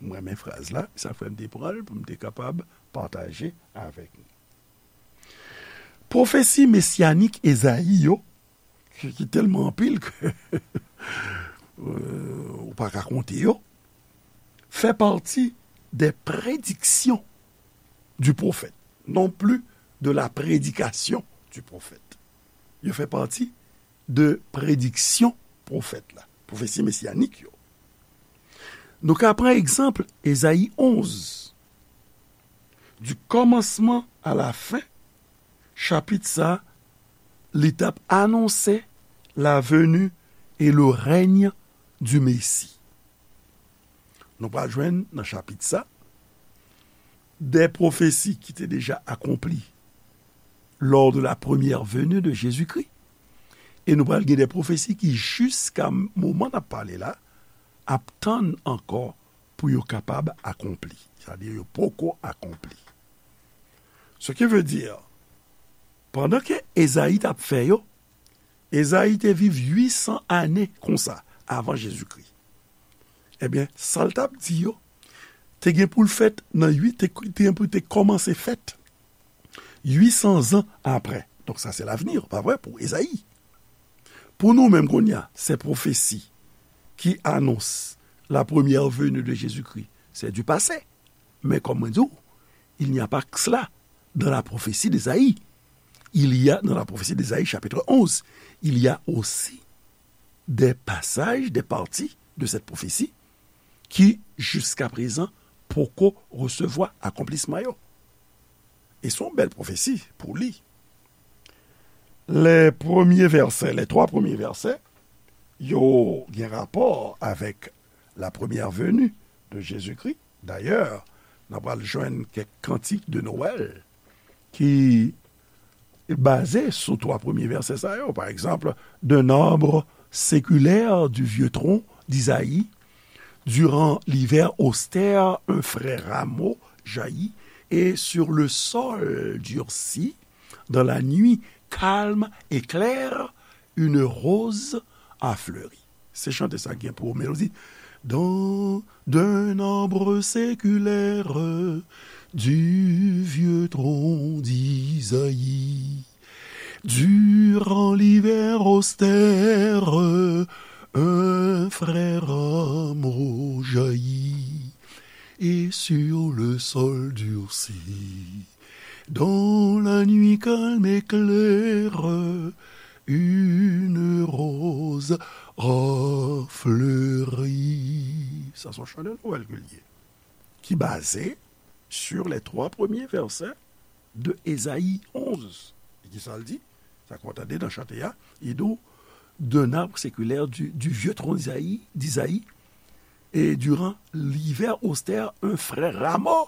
Mwen renmen fraz la, sa fè m te pran l pou m te kapab pataje avèk nou. Pwofesi mesyanik Ezayi yo, ki, ki tèlman anpil ke euh, ou pa ka konte yo, fait partie des prédictions du prophète, non plus de la prédication du prophète. Yo fè pati de prediksyon pwofèt la, pwofesi mesyanik yo. Nou ka pran egzanp Ezayi onz. Du commencement à la fin, chapit sa, li t ap anonse la venue et le règne du Messie. Nou pral jwenn nan chapit sa de pwofesi ki te deja akonpli lors de la première venue de Jésus-Christ. E nou pral gen de pwofesi ki jiska moman n ap pale la ap tann ankò pou yo kapab akonpli. Sa di yo poko akonpli. Ce qui veut dire, pandan ke Ezayi t ap fè yo, Ezayi te viv uit san ane konsa avan Jezikri. Ebyen, sa l t ap di yo te gen pou l fèt nan uit, te, te gen pou te kòmanse fèt uit san zan apre. Donk sa se lavni, pa vre, pou Ezayi. Pou nou menm kounye a, se pwofesi ki anons la première venue de Jésus-Christ, c'est du passé. Mais comme on dit, il n'y a pas que cela dans la prophétie d'Ésaïe. Il y a, dans la prophétie d'Ésaïe, chapitre onze, il y a aussi des passages, des parties de cette prophétie ki, jiska prezan, poko resevwa akonplisman yo. E se yon bèl pwofesi pou li. Les premiers versets, les trois premiers versets, yo gen rapò avèk la première venue de Jésus-Christ. Dayè, n ap pral jwenn kèk kantik de Noël ki baze sou twa premye vèsè sa yo. Pa egzanp, d'un arbre séculaire, du vieux tronc d'Isaïe, durant l'hiver austère, un frais rameau jaillit, et sur le sol durci, dans la nuit calme et claire, une rose a fleuri. Se chante sa gen pou melodi. Dans, d'un arbre séculaire, du vieux tronc d'Isaïe, durant l'hiver austère, un frais rameau jaillit, et sur le sol durci, dans la nuit calme et claire, une rose a fleuri. Sa se yon chan de Nwèl ke l ye, ki baze sur les trois premiers versets de Ezayi onz. E ki sa l di? Sa ke w tande nan chante a, li di w, d'un arbre séculaire, du, du vieux tronc d'Isaïe, d'Isaïe, et durant l'hiver austère, un frais rameau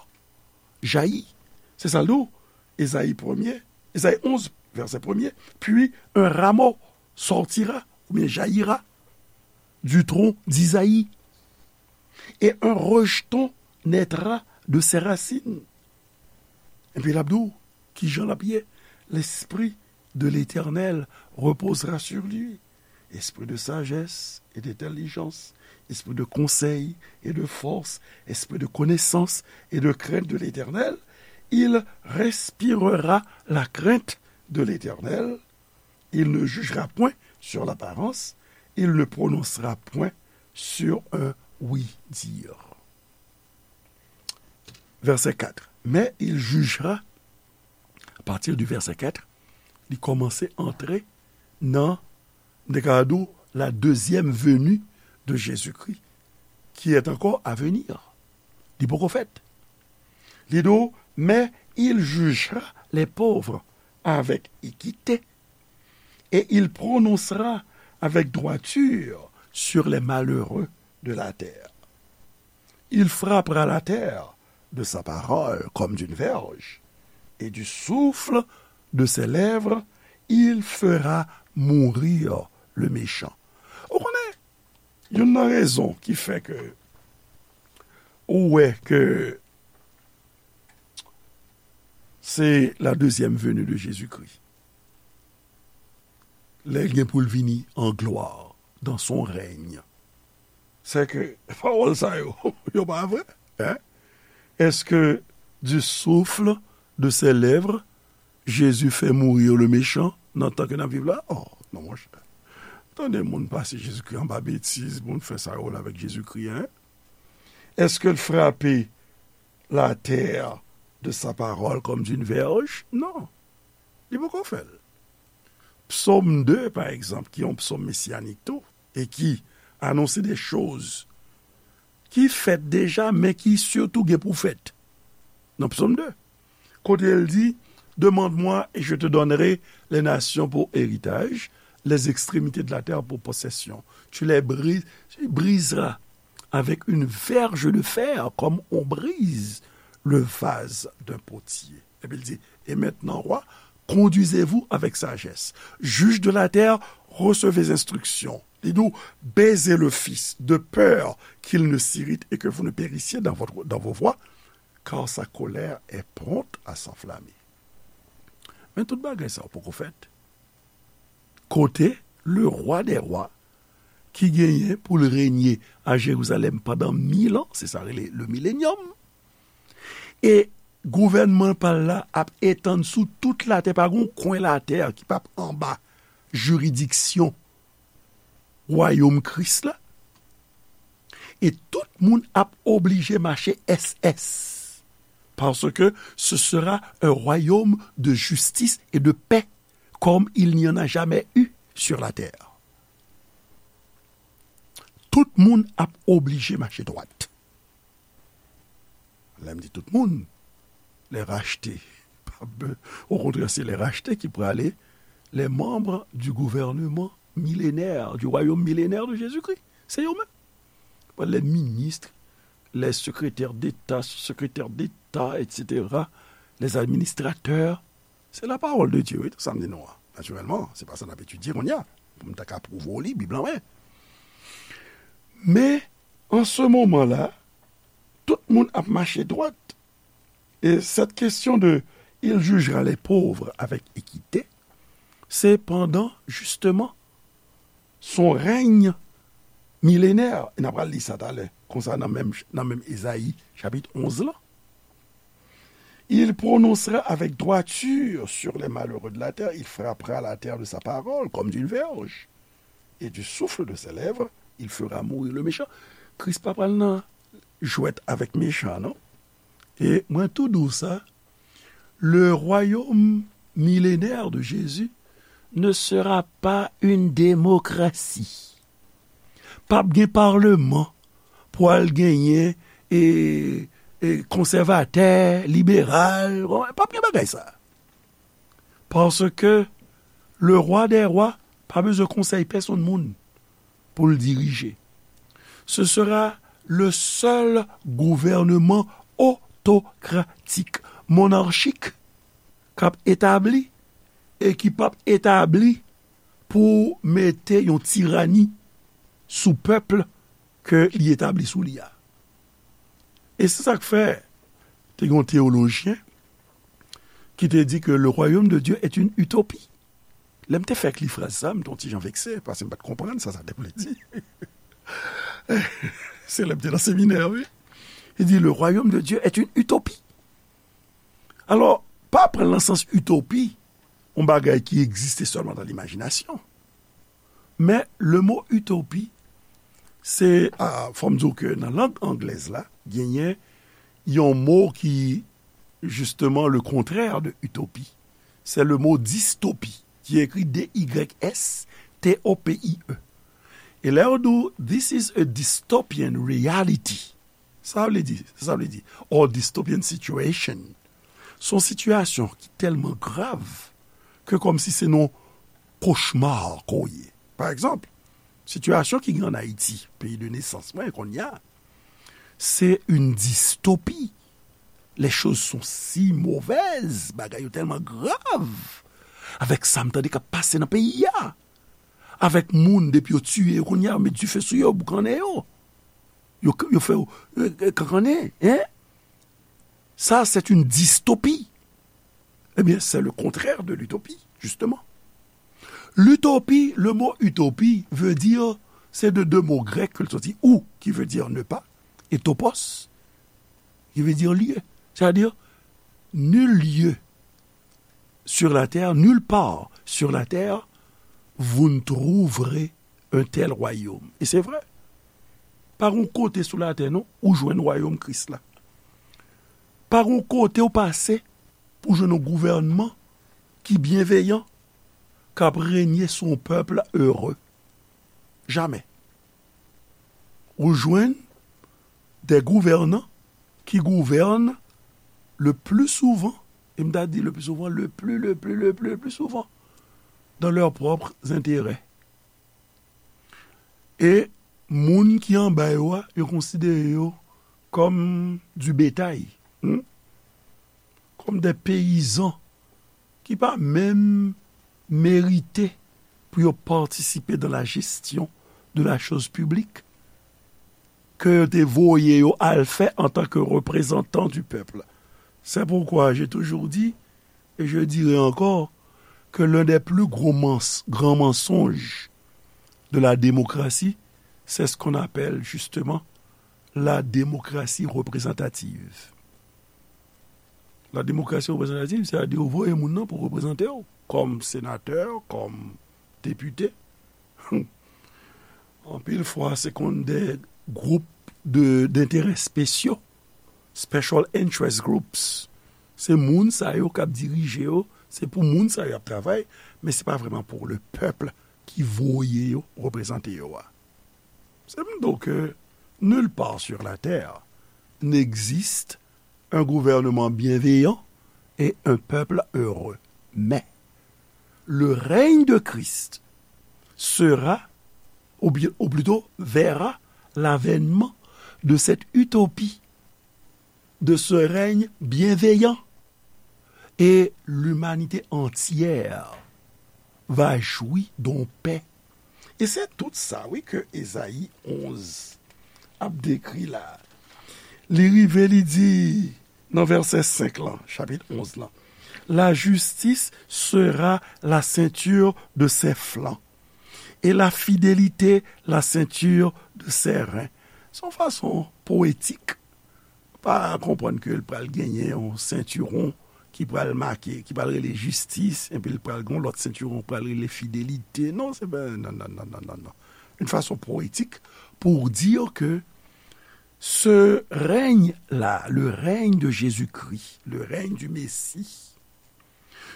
jaillit. Se sa l di w, Ezayi premye, Ezayi onz, vèsè premye, puis un rameau sortira, oubyen jaillira, du tronc d'Isaïe, et un rejeton naîtra de ses racines. Epi l ap di w, kijan l ap ye? L'esprit de l'Éternel reposera sur lui. Esprit de sagesse et d'intelligence, esprit de conseil et de force, esprit de connaissance et de crainte de l'Éternel, il respirera la crainte de l'Éternel, il ne jugera point sur l'apparence, il ne prononcera point sur un oui-dire. Verset quatre. Mais il jugera, à partir du verset quatre, li kòmanse antre nan, m te ka di w, la deuxième venue de Jésus-Christ, qui est encore à venir. Li poko fèt. Li di w, mais il jugera les pauvres avec équité, et il prononcera avec droiture sur les malheureux de la terre. Il frappera la terre de sa parole comme d'une verge, et du souffle de ses lèvres, il fera mourir le méchant. Ou konnen, youn nan rezon ki fè ke ou wè ke se la deuxième venue de Jésus-Christ. Lè l gen pou l vini an glwa, dans son règne. Se ke pawòl sa yo, yo pa vre, hein? Est-ce que du souffle de ses lèvres, Jésus fait mourir le méchant nan tan ke n ap viv la? Oh, non, monchè. Tande moun pase Jezikri anba betiz, moun fè sa yo vle avèk Jezikri, hein? Est-ce que l frape la terre de sa parole comme d'une verge? Non. Li poko fè l. Psaume deux, par exemple, qui est un psaume messianique tout, et qui annonce des choses ki fèt deja, men ki sitou gen pou fèt. Nan Psaume deux, kote l di, Demande-moi et je te donnerai les nations pour héritage, les extrémités de la terre pour possession. Tu les bri- tu briseras avec une verge de fer comme on brise le vase d'un potier. Epi l di, Et maintenant, roi, conduisez-vous avec sagesse. Juges de la terre, recevez instruction. Li di w, Baisez le fils, de peur qu'il ne s'irrite et que vous ne périssiez dans votre, dans vos voies, car sa colère est prompte à s'enflammer. Men tout bagay sa yo poko fèt. Kote le roi des rois ki genyen pou l renye a Jerizalèm pandan mil an, se sa rele le millennium. E gouvènman pa l la ap etann sou tout latè, pa gon kwen latè ki p ap anba jiridiksyon wayòm Kris la. E tout moun ap oblije mache S S. Parce que ce sera un royaume de justice et de paix, comme il n'y en a jamais eu sur la terre. Tout moun ap oblije mache dwat. Lè m di tout moun, les rachetés. Au contraire, c'est les rachetés qui prale, les membres du gouvernement millénaire, du royaume millénaire de Jésus-Christ. Se yo menm. Les ministres, les secrétaires d'État, sous-secrétaires d'État, et cetera, les administrateurs. Se la parole de Dieu, wi, tout sa m di nou an. Natirèlman, se pa sa n ap etidye kounye a. Pou m ta ka pwouve w li, Bib lan, men. Men, an se moman la, tout moun ap mache dwat. Et cette question de il jugera les pauvres avec équité, se pandan, justement, son règne millénaire. E n a pral li sa talè, konsa nan menm, nan menm Ezayi, chapit onz lan. Il prononcera avec droiture sur les malheureux de la terre, il frappera la terre de sa parole comme d'une verge. Et du souffle de ses lèvres, il fera mourir le méchant. Kris pa pral nan jwèt avèk mechan, non? E mwen tou di w sa, le royaume millénaire de Jésus ne sera pas une démocratie. P ap gen paleman pou al genyen e, e konsèvatè, liberal. P ap gen bagay sa. Parce que le roi des rois pa bezwen konsèy pèsonn moun pou l dirije. Ce sera le seul gouvernement autocratique, monarchik, k ap etabli e ki p ap etabli pou mete yon tirani sou pèp ke li etabli sou li a. E se sa k fè, te gen yon teyolojyen ki te di ke le royaume de Dieu est une utopie. Lè m te fèk li fraz sa, m te yon ti jan vekse, paske m pa t konprann sa sa te vle di. Se lè m te nan seminè, wi. Li di, le royaume de Dieu est une utopie. Alò, pa pran l nan sans itopi, yon bagay ki egziste sèlman nan limajinasyon. Men, le mo itopi, se, a, fò m di w ke nan lang anglèz la, genyen yon mo ki, justement, le contraire de utopie. C'est le mot dystopie, ki ekri D Y S T O P I E. E lè yo di w, this is a dystopian reality. Sa vle di, sa vle di, or dystopian situation. Se yon sitiyasyon ki tèlman grav ke kòmsi se yon kochma ke w ye. Pa egzanp, sitiyasyon ki gen ann Ayiti, peyi de nesans mwen, kounye a, se yon distopi. Les choses sont si mauvaises, bagay yo tèlman grav. Avèk sa m tande k ap pase nan peyi a. Avèk moun, depi yo tiye yo, kounye a, yo met dife sou yo, boukannen yo. Yo, yo fè yo, euh, kankannen, hein? Ça, c'est une dystopie. Eh bien, c'est le contraire de l'utopie, justement. L'utopie, le mot utopie veut dire, c'est de deux mots grecs que sorti, ou, qui veut dire ne pas, et topos, qui veut dire lieu. C'est-à-dire, nul lieu sur la terre, nulle part sur la terre, vous ne trouverez un tel royaume. E se vre. Pa gon kote sou latè, non, ou jwenn wayòm Kris la. Pa gon kote ou pase pou jwenn yon gouvènman ki byenveyan, k ap renye sou yon pèp ere. Jamè. Ou jwenn des gouvernants qui gouvernent le plus souvent, e m ta di le plus souvent, le plus, le plus, le plus, le plus souvent, dans leurs propres intérêts. E moun ki anba yo a, yo konsidere yo kòm du bétail, hmm? Kòm des paysans ki pa menm merite pou yo patisipe dans la gestion de la chose publique, ke yo te voye yo al fè en tant que représentants du peuple. C'est pourquoi j'ai toujours dit, et je dirai encore, que l'un des plus gros mens-, grands mensonges de la démocratie, c'est ce qu'on appelle justement la démocratie représentative. La démocratie représentative, c'est-à-dire ou voye moun nan pou reprezante w, kòm senatè, kòm depite. Anpil fwa, se konn de gwoup de, d'intérêts spéciaux, special interest groups. Se moun sa yo k ap dirije yo, se pou moun sa yo y ap travay, men se pa vrèman pou le pèp ki voye yo reprezante yo a. Se m di w ke nulle part sur la terre n'existe un gouvernement bienveillant et un peuple heureux. Mais le règne de Christ sera, ou bien, ou plutôt verra l'avènement de cette utopie, de ce règne bienveillant. Et l'humanité entière va jouir d'une paix. E se tout sa, wi, ke Ezayi onz ap dekri la. Li rive, li di, nan vèsè senk lan, chapit onz lan, la justice sera la ceinture de ses flancs, et la fidélité la ceinture de ses reins. Se yon fason powetik pa konprann ke l pral genyen yon sentiwon ki pral make, ki pral rele jistis, epi l pral gen yon lòt sentiwon k pral rele fidelite. Non, se pa, non, non, non, non, non, non. Une façon poétique pour dire que ce règne-là, le règne de Jésus-Christ, le règne du Messie,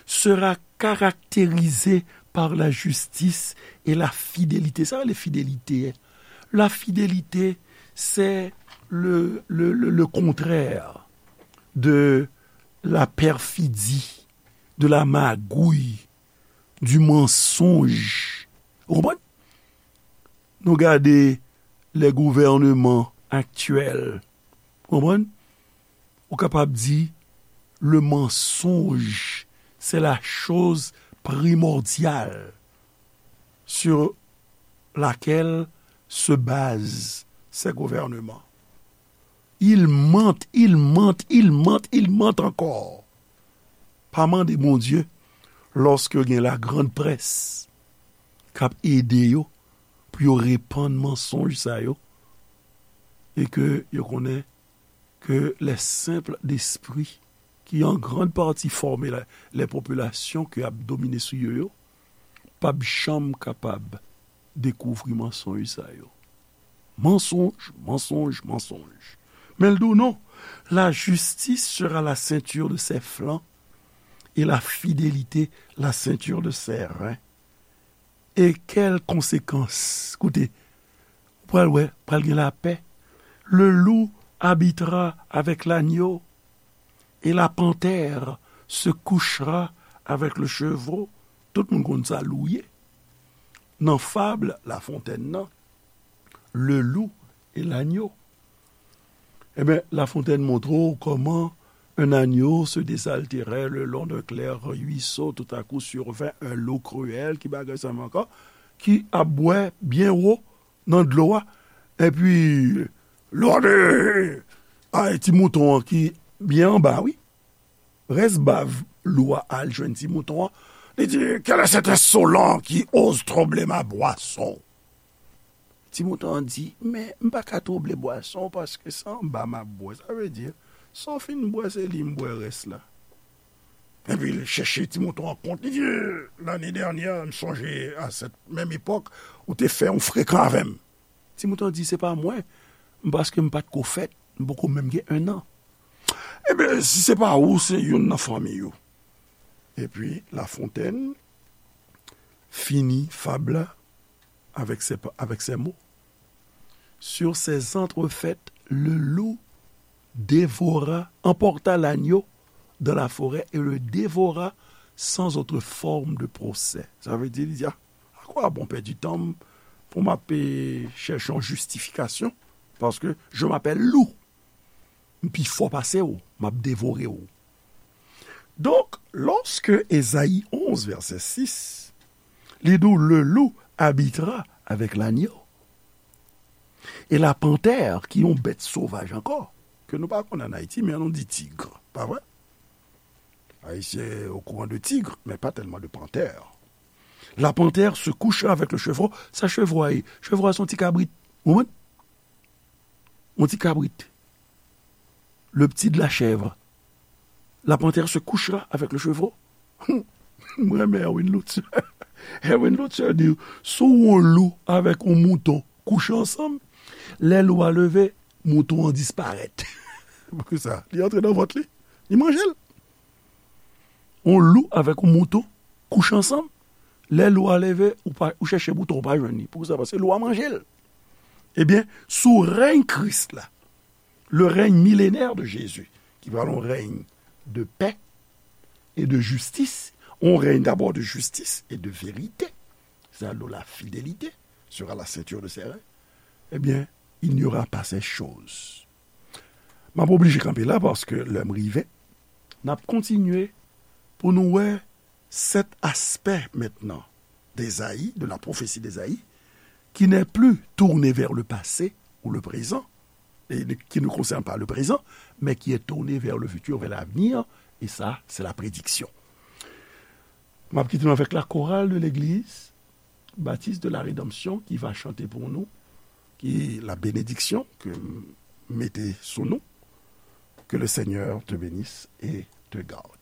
sera caractérisé par la justice et la fidélité. Sa rele fidelite. La fidélite, c'est le, le, le, le contraire de la perfidie, de la magouille, du mensonge. Ou konprann? Nou gade les gouvernements actuels. Ou konprann? Ou kapab di, le mensonge, c'est la chose primordiale sur laquelle se basent ces gouvernements. Ils mentent, ils mentent, ils mentent, ils mentent encore. Pa mande Bondye, lòske gen la grande presse k ap ede yo pou yo repann mansonj sa yo, e ke yo konnen ke les simples d'esprit, ki an grann pati fòme la, les populations ke ap domine sou yo yo, p ap janm kapab dekouvri mansonj sa yo. Mansonj, mansonj, mansonj. Men l di w non, la justice sera la ceinture de ses flancs et la fidélité la ceinture de ses reins. E kèl konsekans? Koute, ou pral wè, pral gen lapè. Le loup habitera avec l'agneau. Et la panthère se couchera avec le chevreau. Tout moun konn sa lou ye. Nan fab Lafontèn nan, le loup et l'agneau. Ebyen, Lafontèn montre w kòman un agneau se désaltérait le long d'un clair ruisseau. Tout à coup survint un loup cruel, ki bagay sa menm ankò, ki ap bwè byen wo nan dlo a. Epi, lòde! Ay, ti mouton an ki byen anba, wi. Rès bav lou a al jwenn ti mouton an. Li di, quel est cet insolent qui ose troubler ma boisson? Ti mouton an di, men m pa ka twouble bwason w paske se anba m ap bwè. Sa vle di, sa w fin bwè, se li m bwè rès la. Epi l chèche ti mouton an kont. Li di, lane dènyè, m sonje a sèt menm epòk, ou te fè yon frekan avè m. Ti mouton an di, se pa mwen, m paske m pa t ko fèt, m poko menm gen en an. Ebyen, si se pa ou, se youn nan fanmi ou. Epi Lafontèn fini fab la avec ces, avec ces mots. Sur ces entrefaites, le loup dévora, emporta l'agneau dans la forêt et le dévora sans autre forme de procès. Sa vle di, li di, ah, à quoi bon pèdi tan m pou m ap chèche yon jistifikasyon? Paske je m'appelle loup. M pi fò pase w, m ap devore w. Donk, lòske Ezayi onz, vèsè sis, li di w, le loup habitera avec l'agneau. E la pantè, ki yon bèt sovaj ankò, ke nou pa konn ann Ayiti, men nou di tig, pa vre? Ayisyen okouran de tig, men pa tèlman de pantè. La panthère se couchera avec le chevreau. Sa chevreau a ye? Chevreau a se yon ti kabrit. Ou konprann? Yon ti kabrit. Le petit de la chèvre. La panthère se couchera avec le chevreau. Mwen renmen Erwin Lutzer. Erwin Lutzer di, si w wè yon lou avèk yon mouton kouche ansanm, lè lou a leve, mouton an disparèt. Poukisa? Li antre nan vant li, li manje l. Yon lou avèk yon mouton kouche ansanm, lè lou a leve, ou pa, ou chèche mouton, ou pa jwenn li. Poukisa? Paske lou a manje l. Ebyen, sou rèy Kris la, le règne millénaire de Jésus, ki pral yon règne de paix et de justice, yon règne d'abord de justice et de vérité, c'est-à-dire la fidélité sera la ceinture de ses reins, ebyen, il n'y aura pas ces choses. M ap oblije kanpe la paske lè m rive, n ap kontinye pou nou wè sèt aspè mentnan d'Ésaïe, de la prophétie d'Ésaïe, qui n'est plus tournée vers le passé ou le présent, et qui ne concerne pas le présent, mais qui est tournée vers le futur, vers l'avenir, et ça, c'est la prédiction. M ap kite nou avèk la chorale de l'église Baptiste de la Rédemption qui va chanter pour nous, qui la bénédiction que m mete sou nou. Que le Seigneur te bénisse et te garde.